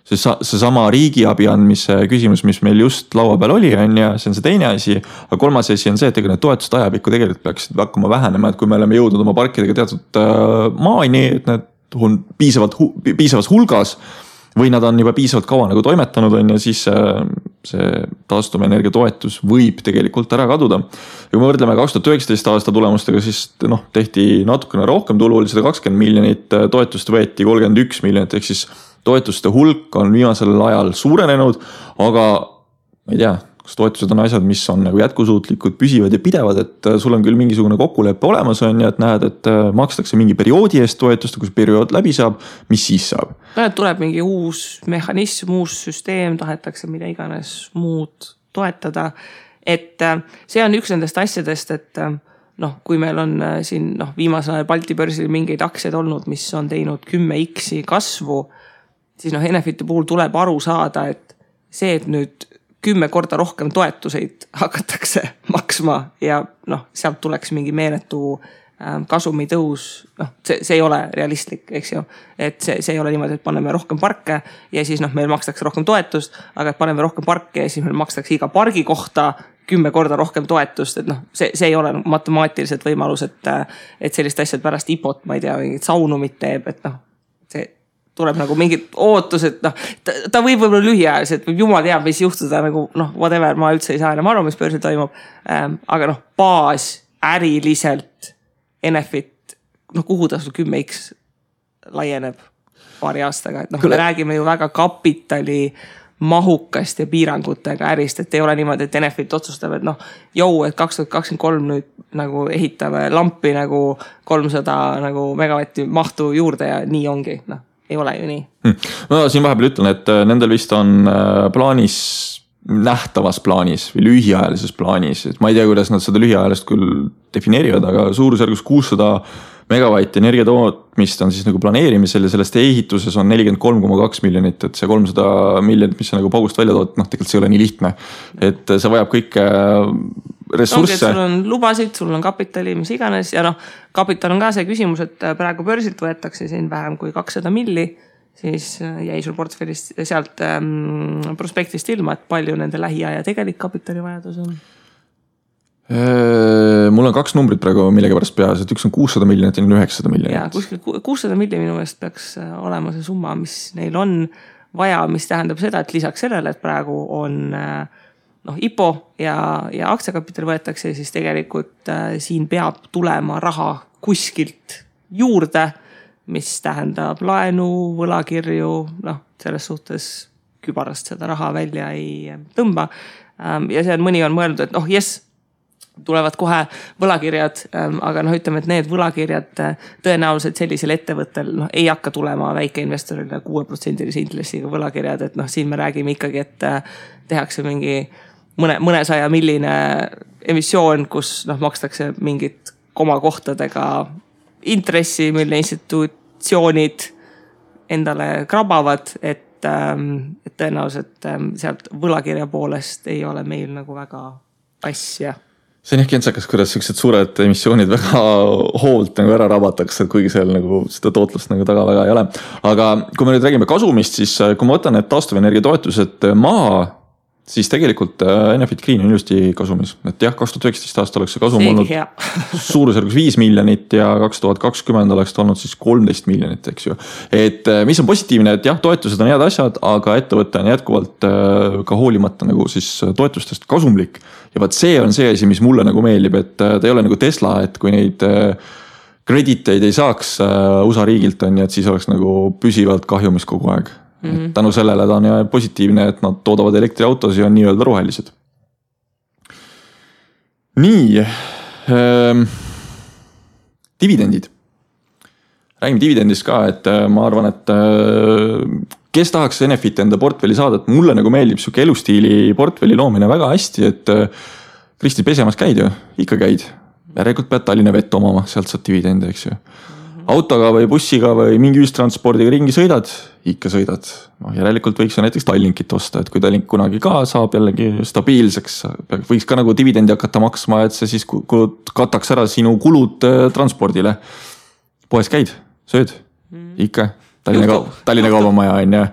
[SPEAKER 2] See sama riigiabi andmise küsimus, mis meil just laua peal oli, ja see on see teine asi, aga kolmas asi on see, et need toetused ajapikku tegelikult peaksid hakkama vähenema, et kui me oleme jõudnud oma parkidega teatud maani, et need on piisavas hulgas, või nad on juba piisavalt kaua toimetanud ja siis see taastuvenergia toetus võib tegelikult ära kaduda. Ja kui me võrdleme 2019 aasta tulemustega, siis tehti natukene rohkem tulu, oli 120 miljonit, toetust võeti 31 miljonit, ehk siis toetuste hulk on viimasel ajal suurenenud, aga ma ei tea, kas toetused on asjad, mis on jätkusuutlikud, püsivad ja pidevad, et sul on küll mingisugune kokkuleppe olemas ja et näed, et makstakse mingi perioodi eest toetust, kui periood läbi saab, mis siis saab?
[SPEAKER 1] Tuleb mingi uus mehhanism, uus süsteem, tahetakse mida iganes muud toetada, et see on üks nendest asjadest, et kui meil on siin viimasel ajal Balti börsil mingeid aktsiaid olnud, mis on teinud 10x kasvu, siis Enefiti puhul tuleb aru saada, et see, et nüüd 10 korda rohkem toetuseid hakatakse maksma ja sealt tuleks mingi meeletu kasumi tõus, see ei ole realistlik, eks ju, et see ei ole niimoodi, et paneme rohkem parke ja siis meil makstakse rohkem toetust, aga et paneme rohkem parke ja siis meil makstakse iga pargi kohta 10 korda rohkem toetust, et see ei ole matemaatiliselt võimalus, et sellist asjad pärast IPOt, ma ei tea, mingit saunumit teeb, et see tuleb mingid ootused, ta võib võib-olla lühiajaliselt, võib jumal teab, mis juhtuda, whatever, ma üldse ei saa enam aru, mis börsil toimub, aga baas äriliselt Enefit, kuhu ta sul 10x laieneb paari aastaga, et me räägime ju väga kapitali mahukast ja piirangutega ärist, et ei ole niimoodi, et Enefit otsustab, et et 2023 nüüd ehitame lampi 300 megavatti mahtu juurde ja nii ongi, ei ole ju nii.
[SPEAKER 2] No siin vahepeal ütlen, et nendel vist on plaanis, nähtavas plaanis või lühiajalises plaanis, et ma ei tea, kuidas nad seda lühiajalist küll defineerivad, aga suurusjärgus 600 megavatti energiatootmist on siis planeerimisel ja sellest ehituses on 43,2 miljonit, et see 300 miljonit, mis on paugust välja tood, tegelikult see ei ole nii lihtne, et see vajab kõike ressursse.
[SPEAKER 1] Sul on lubasid, sul on kapitali, mis iganes ja kapital on ka see küsimus, et praegu börsilt võetakse siin vähem kui 200 milli, siis jäi sul portfellist sealt prospektist ilma, et palju nende lähiaja tegelik kapitalivajadus on?
[SPEAKER 2] Mul on 2 numbrit praegu millegi pärast peas, et üks on 600 miljonit ja 900 miljonit.
[SPEAKER 1] Ja, kuskil 600 miljonit minu meelest peaks olema see summa, mis neil on vaja, mis tähendab seda, et lisaks sellele, et praegu on IPO ja aktsiakapital võetakse, siis tegelikult siin peab tulema raha kuskilt juurde, mis tähendab laenu, võlakirju, selles suhtes kübarast seda raha välja ei tõmba. Ja see on mõni on mõelnud, et yes, tulevad kohe võlakirjad, aga ütleme, et need võlakirjad tõenäoliselt sellisel ettevõttel ei hakka tulema väikeinvestorile 6% intressiga võlakirjad, et siin me räägime ikkagi, et tehakse mingi mõnesaja milline emissioon, kus makstakse mingit komakohtadega intressi, mille institutsioonid endale krabavad, et tõenäoliselt sealt võlakirja poolest ei ole meil nagu väga asja.
[SPEAKER 2] See on jah kentsakas, kuidas sellised suured emissioonid väga hoolt nagu ära rabatakse, kuigi seal nagu seda tootlust nagu taga väga ei ole. Aga kui me nüüd räägime kasumist, siis kui ma võtan need taastuvenergia toetused maha, siis tegelikult Enefit Green on ilusti kasumis. Et jah, 2019 aasta oleks see kasum olnud suurusjärgus 5 miljonit ja 2020 oleks olnud siis 13 miljonit, eks ju. Et mis on positiivne, et jah, toetused on head asjad, aga ettevõte on jätkuvalt ka hoolimata nagu siis toetustest kasumlik. Ja vaat see on see asi, mis mulle nagu meeldib, et ta ei ole nagu Tesla, et kui neid krediteid ei saaks USA riigilt on, et siis oleks nagu püsivalt kahjumis kogu aeg. Tänu sellele ta on positiivne, et nad toodavad elektriautosi ja on nii-öelda rohelised. Nii, dividendid. Räägime dividendist ka, et ma arvan, et kes tahaks Enefit enda portfelli saada, et mulle nagu meeldib siuke elustiili portfelli loomine väga hästi, et Kristi pesemas käid ju, ikka käid. Järelikult pead Tallinna vett omama, sealt saad dividende, eks ju. Autoga või bussiga või mingi ühistranspordiga ringi sõidad, ikka sõidad. Järelikult võiks ju näiteks Tallinkit osta, et kui Tallink kunagi ka saab jällegi stabiilseks, võiks ka nagu dividendi hakata maksma, et see siis kataks ära sinu kulud transpordile. Poes käid, sööd, ikka. Tallinna kaubamaja on ja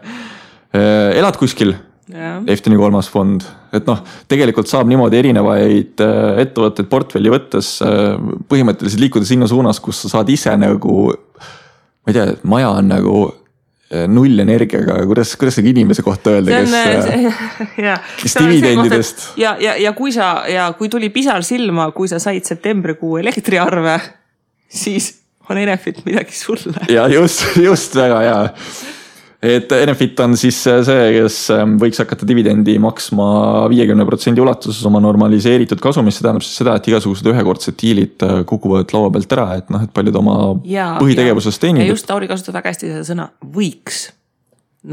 [SPEAKER 2] elad kuskil, Efteni 3. fond, et noh, tegelikult saab niimoodi erinevaid ettevõtteid portfelli võttes põhimõtteliselt liikuda sinna suunas, kus sa saad ise nagu, ma ei tea, maja on nagu null energiaga, kuidas see inimese kohta öelda, kes dividendidest.
[SPEAKER 1] Ja kui tuli pisar silma, kui sa said septembrikuu elektriarve, siis on Enefit midagi sulle.
[SPEAKER 2] Ja just väga hea. Et Enefit on siis see, kes võiks hakata dividendi maksma 50% ulatuses oma normaliseeritud kasumist. See tähendab siis seda, et igasugused ühekordsed diilid kukuvad laua pealt ära, et noh, et paljud oma põhitegevusest teenib.
[SPEAKER 1] Ja just Tauri kasutab väga hästi seda sõna võiks.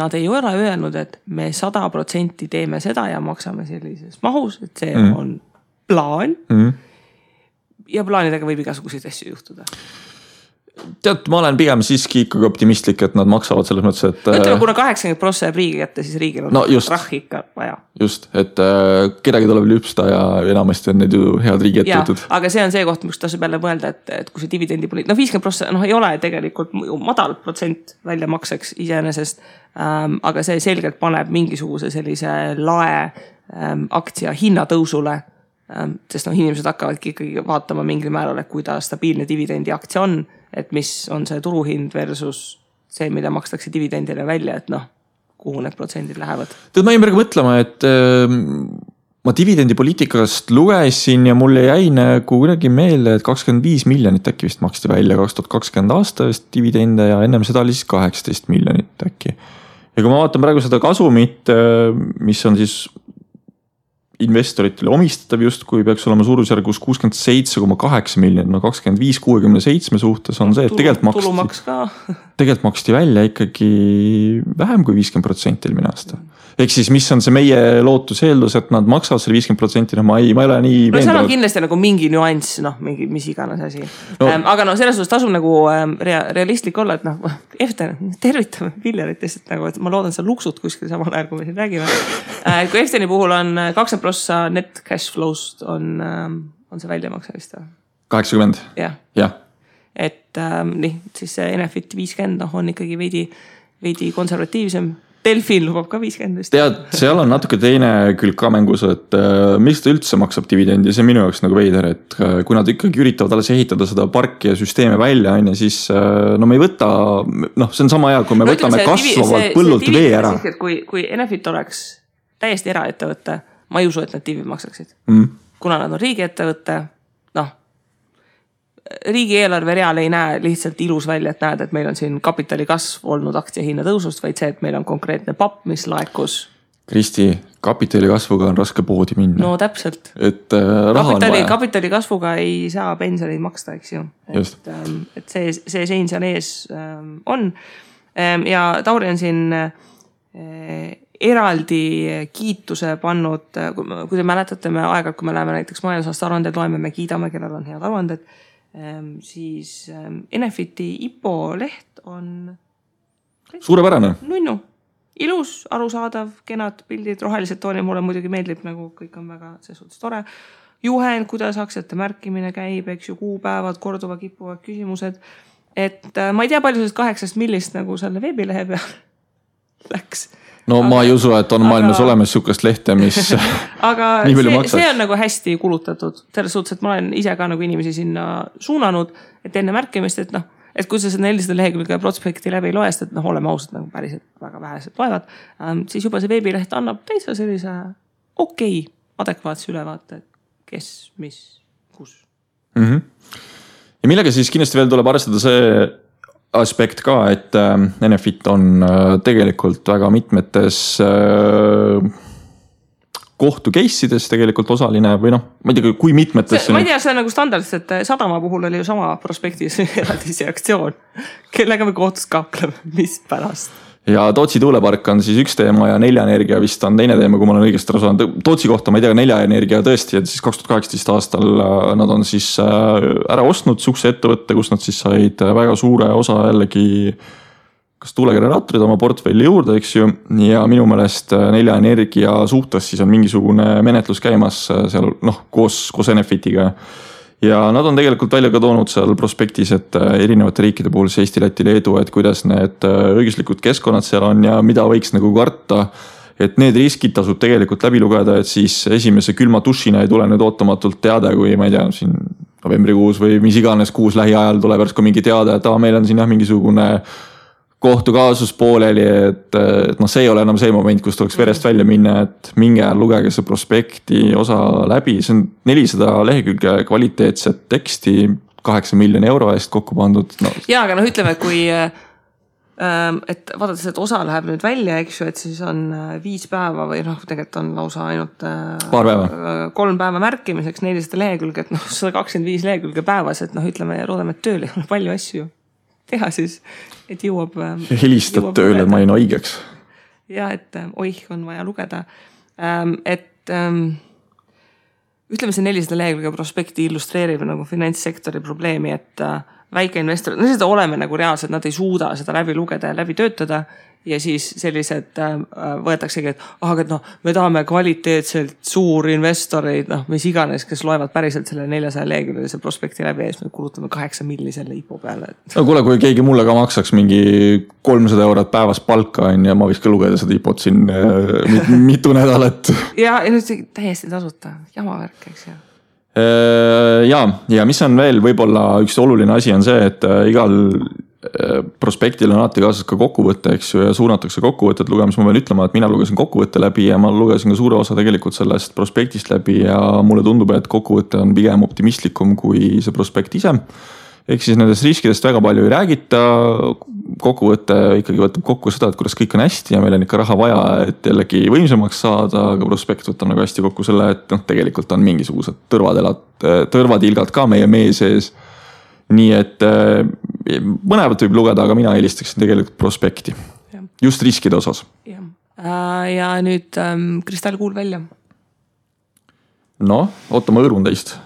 [SPEAKER 1] Nad ei ole öelnud, et me 100% teeme seda ja maksame sellises mahus, et see on plaan. Ja plaanidega võib igasuguseid asju juhtuda.
[SPEAKER 2] Tead, ma olen pigem siiski ikkagi optimistlik, et nad maksavad selles mõttes, et...
[SPEAKER 1] Ütleme, kuna 80% jääb riigi kätte, siis riigil on rahhi ikka vaja.
[SPEAKER 2] Just, et kedagi tuleb lüpsta ja enamasti on need ju head riigi ettevõtted.
[SPEAKER 1] Aga see on see koht, mis tasub jälle mõelda, et kui see dividendi poliit... 50% ei ole tegelikult madal protsent väljamakseks iseenesest, aga see selgelt paneb mingisuguse sellise lae aktsia hinnatõusule, sest inimesed hakkavadki ikkagi vaatama mingil määral, et kuidas stabiilne dividendi aktsia on, et mis on see turuhind versus see, mida makstakse dividendile välja, et kuhu need protsendid lähevad.
[SPEAKER 2] Tead, ma jäin praegu mõtlema, et ma dividendipoliitikast lugesin ja mulle jäi nagu kuidagi meelde, et 25 miljonit äkki vist maksti välja 2020 aastast dividende ja ennem seda oli siis 18 miljonit äkki. Ja kui ma vaatan praegu seda kasumit, mis on siis investoritele omistatav just, kui peaks olema suurusjärgus 67,8 miljonit, 25-67 suhtes on see, et tegelikult maksti välja ikkagi vähem kui 50% eelmine aasta. Ehk siis, mis on see meie lootus eeldus, et nad maksavad selle 50%, ma ei ole nii
[SPEAKER 1] veendunud. Seal on kindlasti nagu mingi nüanss, mingi, mis iganes asi. Aga selles suhtes tasub nagu realistlik olla, et Eften, tervitame Villeritest, et ma loodan seda luksut kuskil samal ajal, kui me siin räägime. Kui Efteni puhul on 20% net cash flow'st on see väljamakse vist?
[SPEAKER 2] 80?
[SPEAKER 1] Jah. Et siis see Enefit 50 on ikkagi veidi konservatiivsem. Delfin lubab ka 50.
[SPEAKER 2] Tead, seal on natuke teine külg ka mängus, et miks ta üldse maksab dividendi, see on minu jaoks nagu veider, et kui nad ikkagi üritavad alles ehitada seda parki ja süsteeme välja, siis me ei võta, see on sama hea, kui me võtame kasvavalt põllult vee ära.
[SPEAKER 1] Kui Enefit oleks täiesti eraettevõtte, ma ei usu, et nad divi maksaksid. Kuna nad on riigiettevõtte, riigieelarve real ei näe lihtsalt ilus välja, et näed, et meil on siin kapitali kasv olnud aktsiahinna tõusust, vaid see, et meil on konkreetne papp, mis laekus.
[SPEAKER 2] Kristi, kapitali kasvuga on raske poodi minna.
[SPEAKER 1] No täpselt.
[SPEAKER 2] Et raha on vaja.
[SPEAKER 1] Kapitali kasvuga ei saa pensioneid maksta, eks ju. Et see sein seal ees on. Ja Tauri on siin eraldi kiituse pannud, kui te mäletate, me aeg-ajalt, kui me läheme näiteks majandusaasta aruanded loeme, me kiidame, kellel on head aruanded, siis Enefiti IPO leht on
[SPEAKER 2] suurepärane.
[SPEAKER 1] Nunnu. ilus, arusaadav, kenad pildid, rohelised toonid, mulle muidugi meeldib, nagu kõik on väga selles suhtes tore. Juhend, kuidas aktsiate märkimine käib, eks ju, kuupäevad, korduva kippuvad küsimused. Et ma ei tea palju sellest 8 millist nagu selle veebilehe peal läks.
[SPEAKER 2] No ma ei usu, et on maailmas olemas sükast lehte, mis
[SPEAKER 1] aga see on nagu hästi kulutatud. Selles suhtes, et ma olen ise ka nagu inimesi sinna suunanud, et enne märkimist, et et kui sa seda 400 lehekülge prospekti läbi ei loest, et oleme ausad nagu päriselt väga vähesed loevad, siis juba see veebileht annab täitsa sellise adekvaatse ülevaate, kes, mis, kus.
[SPEAKER 2] Ja millega siis kindlasti veel tuleb arvestada see aspekt ka, et Enefit on tegelikult väga mitmetes kohtu case'ides tegelikult osaline või ma ei tea, kui mitmetes.
[SPEAKER 1] Ma ei tea, see on nagu standardselt, et Sadama puhul oli ju sama prospektis eraldisi aktsioon, kellega me kohtus kakleme, mis pärast.
[SPEAKER 2] Ja Tootsi tuulepark on siis üks teema ja Nelja Energia vist on teine teema, kui ma olen õigesti aru saanud. Tootsi kohta ma ei tea, Nelja Energia tõesti, et siis 2018 aastal nad on siis ära ostnud sukse ettevõtte, kus nad siis said väga suure osa jällegi kas tuulegeneraatorid oma portfelli juurde, eks ju. Ja minu meelest Nelja Energia suhtes siis on mingisugune menetlus käimas seal koos Enefitiga. Ja nad on tegelikult välja ka toonud seal prospektis, et erinevate riikide puhul Eesti, Läti, Leedu, et kuidas need õiguslikud keskkonnad seal on ja mida võiks nagu karta. Et need riskid tasub tegelikult läbi lugeda, et siis esimese külma dušina ei tule nüüd ootamatult teade, kui ma ei tea, siin novembrikuus või mis iganes kuus lähiajal tuleb järsku mingi teade, et meil on siin mingisugune kohtukaasus pooleli, et see ei ole enam see moment, kus tuleks verest välja minna, et minge lugege see prospekti osa läbi. See on 400 lehekülge kvaliteetset teksti 8 miljoni euro eest kokku pandud.
[SPEAKER 1] Ja, aga ütleme, kui et vaadates, et osa läheb nüüd välja, eks ju, et siis on 5 päeva või tegelikult on lausa ainult
[SPEAKER 2] paar päeva.
[SPEAKER 1] 3 päeva märkimiseks 400 lehekülge, et 125 lehekülge päevas, et ütleme ja loodame, et tööl ei ole palju asju teha siis, et jõuab.
[SPEAKER 2] Helistad tööle, et ma ei haigeks.
[SPEAKER 1] Ja, et on vaja lugeda. Et ütleme see 400 lehekülge prospekti illustreerib nagu finantssektori probleemi, et väikeinvestorid, seda oleme nagu reaalselt, nad ei suuda seda läbi lugeda ja läbi töötada ja siis sellised võetaksegi, et me tahame kvaliteetselt suurinvestoreid, mis iganes, kes loevad päriselt selle 400 leheküljelise prospekti läbi ja siis me kulutame 8 milli selle IPO peale.
[SPEAKER 2] No kuule, kui keegi mulle ka maksaks mingi 300 eurot päevas palka ja ma võiks ka lugeda seda IPO-t siin mitu nädalat.
[SPEAKER 1] Ja nüüd täiesti tasuta, jamavärk, eks ju.
[SPEAKER 2] Ja mis on veel võib-olla üks oluline asi on see, et igal prospektil on alati kaasas ka kokkuvõte, eks ju, ja suunatakse kokkuvõtet lugemas. Ma pean ütlema, et mina lugesin kokkuvõtte läbi ja ma lugesin ka suure osa tegelikult sellest prospektist läbi ja mulle tundub, et kokkuvõte on pigem optimistlikum kui see prospekt ise. Ehk siis nendest riskidest väga palju ei räägita. Kokkuvõte ikkagi võtab kokku seda, et kuidas kõik on hästi ja meil on ikka raha vaja, et jällegi võimsamaks saada, aga prospekt võtab nagu hästi kokku selle, et tegelikult on mingisugused tõrvatilgad ka meie mee sees. Nii et mõnevat võib lugeda, aga mina eelistaksin tegelikult prospekti. Ja. Just riskide osas.
[SPEAKER 1] Ja nüüd kristallkuul välja.
[SPEAKER 2] Oota, ma õõrun teist.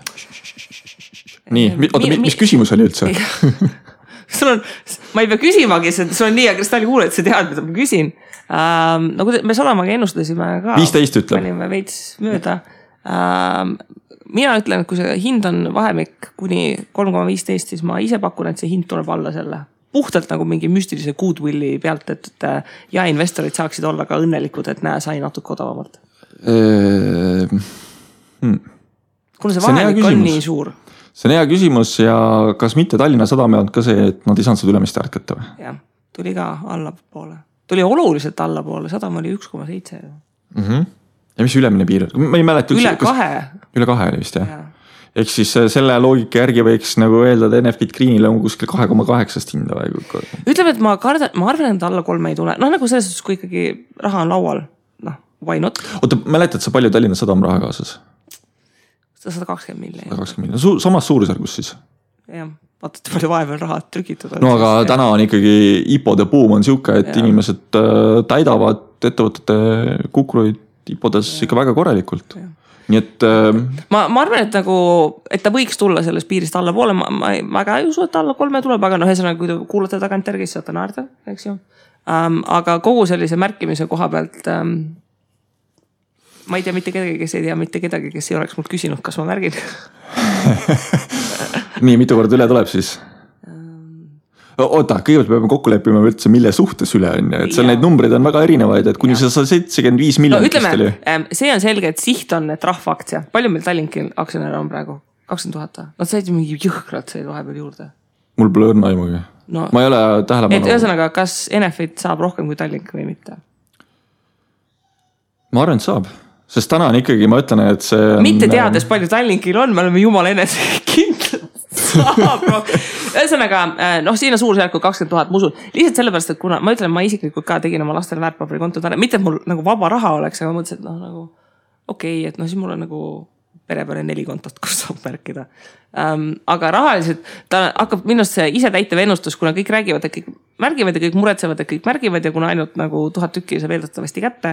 [SPEAKER 2] Nii, mis küsimus oli üldse?
[SPEAKER 1] Ma ei pea küsimagi, sul on nii ja kristallkuul, et sa tead, mida ma küsin. Me Salamaga ennustasime ka.
[SPEAKER 2] 15 ütleb.
[SPEAKER 1] Panime veits mööda. Mina ütlen, et kui see hind on vahemik kuni 3,15, siis ma ise pakun, et see hind tuleb alla selle. Puhtalt nagu mingi müstilise goodwilli pealt, et ja investorid saaksid olla ka õnnelikud, et sai natuke odavamalt. Kuna see vahemik on nii suur.
[SPEAKER 2] See on hea küsimus ja kas mitte Tallinna Sadam on ka see, et nad ei saanud seda ülemist ärkata või?
[SPEAKER 1] Jah, tuli ka allapoole. Tuli oluliselt allapoole, Sadam oli 1,7.
[SPEAKER 2] Ja mis ülemine piir? Ma ei mäleta
[SPEAKER 1] üle 2.
[SPEAKER 2] Üle 2 oli vist, jah. Ehk siis selle loogika järgi võiks nagu öelda, et Enefit Greenile on kuskil 2,8 hinda või?
[SPEAKER 1] Ütleme, et ma arvan, et alla 3 ei tule. Nagu selles suhtes, kui ikkagi raha on laual, why not?
[SPEAKER 2] Oota, mäletad sa palju Tallinna Sadam raha kaasas?
[SPEAKER 1] 120 miljonit.
[SPEAKER 2] 120 miljonit. Samas suurusjärgus siis?
[SPEAKER 1] Jah, vaatad palju vaeval raha trükitud.
[SPEAKER 2] Aga täna on ikkagi IPO-de buum on siuke, et inimesed täidavad ettevõtete kukruid IPO-des ikka väga korralikult. Nii et
[SPEAKER 1] ma arvan, et nagu, et ta võiks tulla sellest piirist alla poole, ma väga ei usu, et alla 3 tuleb, aga ühesõnaga, kui te kuulate tagant järgi, siis saate naerda, eks ju. Aga kogu sellise märkimise koha pealt ma ei tea mitte kedagi, kes ei tea mitte kedagi, kes ei oleks mult küsinud, kas ma märgin.
[SPEAKER 2] Nii, mitu korda üle tuleb siis? Oota, kõigepealt peame kokku leppima üldse, mille suhtes üle on. Et seal neid numbreid on väga erinevaid, et kuni 175 miljonit.
[SPEAKER 1] No ütleme, see on selge, et siht on et rahvaaktsia. Palju meil Tallinkil aktsionäre on praegu? 20 000. Nad said mingi jõhkralt said vahepeal juurde.
[SPEAKER 2] Mul pole õrna aimugi. No, ma ei ole tähelepanu.
[SPEAKER 1] Et ühesõnaga, kas Enefit saab rohkem kui Tallink või mitte?
[SPEAKER 2] Ma arvan, et saab. Sest täna on ikkagi, ma ütlen, et see on...
[SPEAKER 1] Mitte teades palju Tallinkil on, me oleme jumala enese kindlad. Ühesõnaga, siin on suurusjärku 20 000, ma usun. Lihtsalt sellepärast, et kuna ma ütlen, ma isiklikult ka tegin oma lastele väärtpaberikonto. Mitte et mul nagu vaba raha oleks, aga ma mõtlesin, et nagu okei, et siis mul on nagu pere peale 4 kontot, kus saab märkida. Aga rahaliselt ta hakkab minust see ise täitev ennustus, kuna kõik räägivad, et kõik märgivad ja kõik muretsevad, et kõik märgivad ja kuna ainult nagu 1000 tükki see veeldatavasti kätte,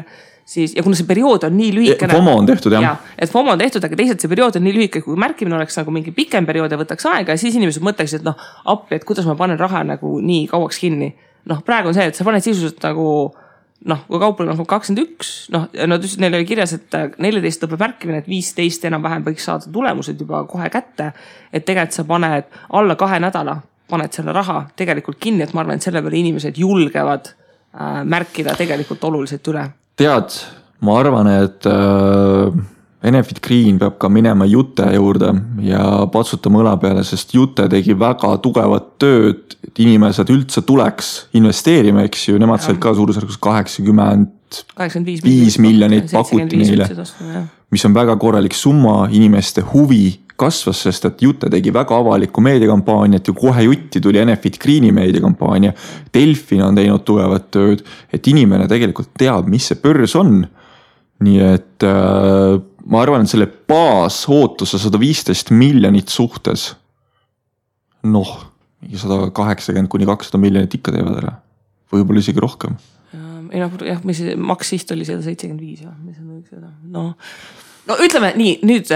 [SPEAKER 1] siis, ja kuna see periood on nii lühikene.
[SPEAKER 2] FOMO on tehtud, jah.
[SPEAKER 1] Ja, et FOMO on tehtud, aga teisalt see periood on nii lühike, kui märkimine oleks nagu mingi pikem periood ja võtaks aega ja siis inimesed mõtleksid, et appi, et kuidas ma panen raha nagu nii kauaks kinni. Praegu on see, et sa paned sisuliselt nagu kui kaupel on 21, neil oli kirjas, et 14 lõpeb märkimine, et 15 enam-vähem võiks saada tulemused juba kohe kätte, et tegelikult sa paned alla 2 nädala, paned selle raha tegelikult kinni, et ma arvan, et selle peale inimesed julgevad märkida tegelikult oluliselt üle.
[SPEAKER 2] Tead, ma arvan, et Enefit Green peab ka minema Jute juurde ja patsutama õla peale, sest Jute tegi väga tugevat tööd, et inimesed üldse tuleks investeerima, eks ju, nemad said ka suurusjärgus 85 miljonit pakuti neile, mis on väga korralik summa, inimeste huvi kasvas, sest et Jute tegi väga avalikku meediakampaaniat ja kohe jutti tuli Enefit Greeni meediakampaania. Delfin on teinud tugevat tööd, et inimene tegelikult teab, mis see börs on. Nii et ma arvan, et selle baasootuse 115 miljonit suhtes, 180 kuni 200 miljonit ikka teevad ära. Võib-olla isegi rohkem.
[SPEAKER 1] Jah, mis maks siht oli 175. Ütleme nii, nüüd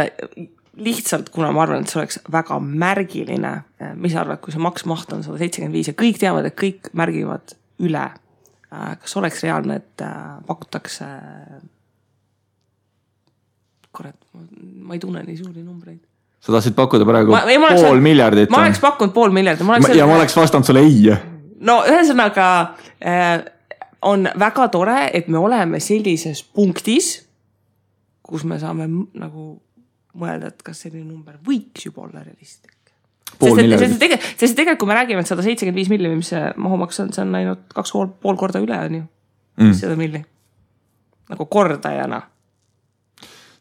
[SPEAKER 1] lihtsalt, kuna ma arvan, et see oleks väga märgiline, mis arvad, kui see maksmaht on 175 ja kõik teavad, et kõik märgivad üle. Kas oleks reaalne, et pakutakse ma ei tunne nii suuri numbreid. Sa tahtsid pakkuda praegu pool miljardit? Ma oleks pakkunud pool miljardit. Ja ma oleks vastanud sulle ei. Ühesõnaga on väga tore, et me oleme sellises punktis, kus me saame nagu mõelda, et kas selline number võiks juba olla realistlik. Sest tegelikult, kui me räägime, et 175 milli, mis see mahumaks on, see on ainult 2,5 korda üle on ju. Seda milli. Nagu kordajana.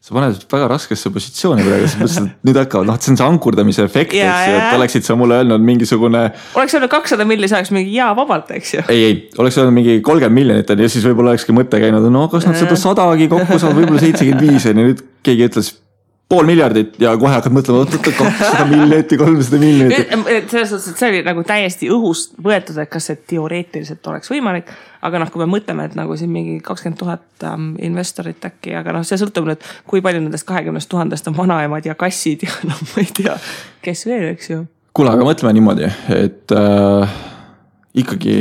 [SPEAKER 1] Sa paned väga raskesse positsiooni praegu, sest nüüd hakkavad, see on see ankurdamise efekt, et oleksid sa mulle öelnud mingisugune... Oleks öelnud 200 milli, saaks mingi vabalt, eks ju? Ei, oleks öelnud mingi 30 miljonit ja siis võib-olla olekski mõte käinud, kas nad seda 100-gi kokku saavad, võib-olla 75 ja nüüd keegi ütles pool miljardit ja kohe hakkad mõtlema 200 miljonit ja 300 miljonit. Selles suhtes, et see oli nagu täiesti õhust võetud, et kas see teoreetiliselt oleks võimalik, aga kui me mõtleme, et nagu siin mingi 20 000 investorit äkki, aga see sõltub nüüd, kui palju nendest 20 000 on vanaemad ja kassid ja ma ei tea, kes veel, eks ju. Kuule, aga mõtleme niimoodi, et ikkagi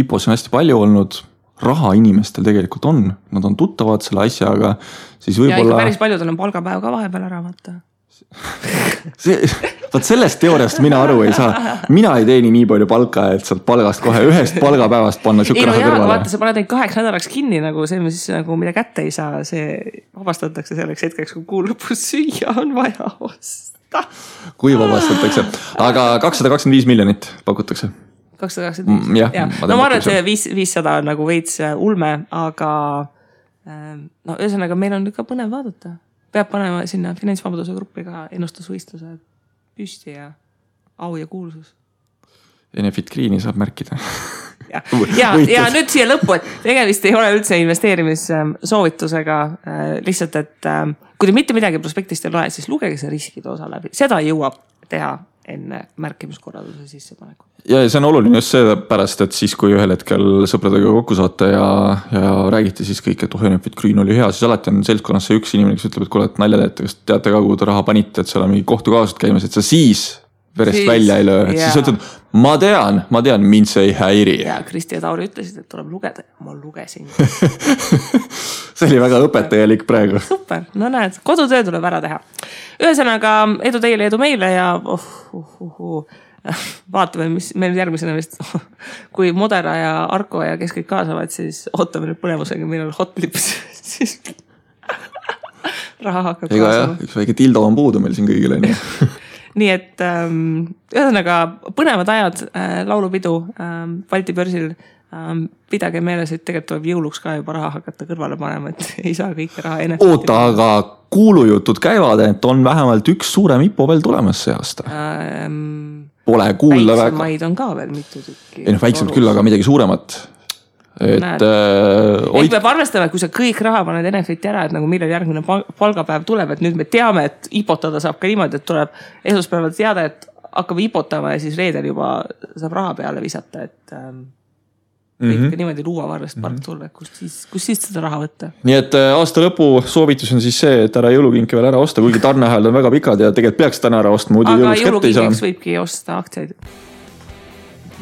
[SPEAKER 1] IPOs on hästi palju olnud, raha inimestel tegelikult on, nad on tuttavad selle asjaga, siis võib-olla... Ja ikka päris paljudel on palgapäev ka vahepeal ära vaata. Sellest teooriast mina aru ei saa. Mina ei teeni nii palju palka, et saad palgast kohe ühest palgapäevast panna siuke raha kõrvale. Vaata, sa paned neid 8 nädalaks kinni, nagu see, mis nagu mida kätte ei saa, see vabastatakse selleks hetkeks, kui kuu lõpus süüa on vaja osta. Kui vabastatakse? Aga 225 miljonit pakutakse. 225. Ja. No ma arvan, et 500 on nagu veits ulme, aga ühesõnaga meil on ikka põnev vaadata. Peab panema sinna finantsvabaduse gruppi ka ennustusvõistluse püsti ja au ja kuulsus. Enefit Greeni saab märkida. Ja nüüd siia lõppu, et tegemist ei ole üldse investeerimissoovitusega. Lihtsalt, et kui te mitte midagi prospektist ei loe, siis lugege see riskide osa läbi. Seda jõuab teha enne märkimiskorralduse sissepaneku. Ja see on oluline just see pärast, et siis kui ühel hetkel sõpradega kokku saate ja räägite siis kõik, et Enefit Green oli hea, siis alati on seltskonnas see üks inimene, kes ütleb, et kuule, et nalja teete, kas teate ka, kuhu te raha panite, et seal on mingi kohtukaasud käimas, et sa siis
[SPEAKER 2] verest välja ei löö, et siis ütled, ma tean, mind see ei häiri.
[SPEAKER 1] Ja Kristi ja Tauri ütlesid, et tuleb lugeda ja ma lugesin.
[SPEAKER 2] See oli väga õpetajalik praegu.
[SPEAKER 1] Super, no näed, kodutöö tuleb ära teha. Ühesõnaga, edu teile, edu meile ja vaatame, mis meil järgmisena vist, kui Modera ja Arko ja kes kõik kaasavad, siis ootame nüüd põnevusega, meil on hotlips, siis raha hakkab kaasama.
[SPEAKER 2] Üks väike tildo on puudu meil siin kõigile.
[SPEAKER 1] Nii et ühesõnaga põnevad ajad, laulupidu Balti börsil. Pidage meeles, et tegelikult tuleb jõuluks ka juba raha hakata kõrvale panema, et ei saa kõike raha ennast.
[SPEAKER 2] Oota, aga kuulujutud käivad, et on vähemalt üks suurem IPO veel tulemas see aasta. Pole kuulda väga.
[SPEAKER 1] Väiksemaid on ka veel mitu tükki.
[SPEAKER 2] Väiksemad küll, aga midagi suuremat.
[SPEAKER 1] Ehk peab arvestama, et kui sa kõik raha paned Enefiti ära, et nagu millal järgmine palgapäev tuleb, et nüüd me teame, et ipotada saab ka niimoodi, et tuleb esmaspäeval teada, et hakkab ipotama ja siis reedel juba saab raha peale visata, et kõik niimoodi luuavarrest park tulla, kus siis seda raha võtta.
[SPEAKER 2] Nii et aasta lõpu soovitus on siis see, et ära jõulukinki veel ära osta, kuigi tarneahel on väga pikad ja tegelikult peaks täna ära ostma, muidu jõuluks kätte ei saa.
[SPEAKER 1] Aga jõulukinkiks võibki osta aktsiaid.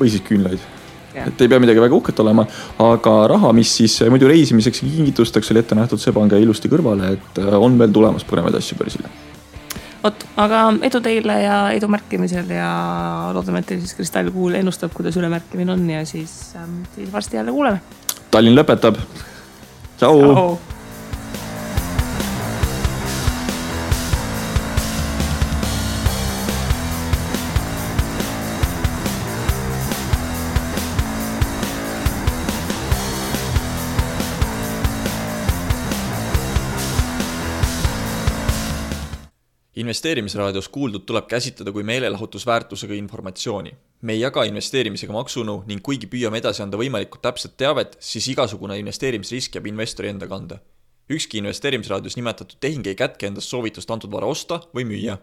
[SPEAKER 2] Või siis küünlaid. Et ei pea midagi väga uhket olema, aga raha, mis siis muidu reisimiseks ja kingitusteks oli ette nähtud, see pange ilusti kõrvale, et on veel tulemas põnevaid asju börsile.
[SPEAKER 1] Aga edu teile ja edu märkimisel ja loodame, et teil siis kristallkuul ennustab, kuidas ülemärkimine on ja siis varsti jälle kuuleme.
[SPEAKER 2] Tallinn lõpetab. Ciao!
[SPEAKER 3] Investeerimisraadios kuuldud tuleb käsitleda kui meelelahutusväärtusega informatsiooni. Me ei jaga investeerimisega maksunu ning kuigi püüame edasi anda võimalikult täpset teavet, siis igasugune investeerimisrisk jääb investori enda kanda. Ükski investeerimisraadios nimetatud tehing ei kätke endast soovitust antud vara osta või müüa.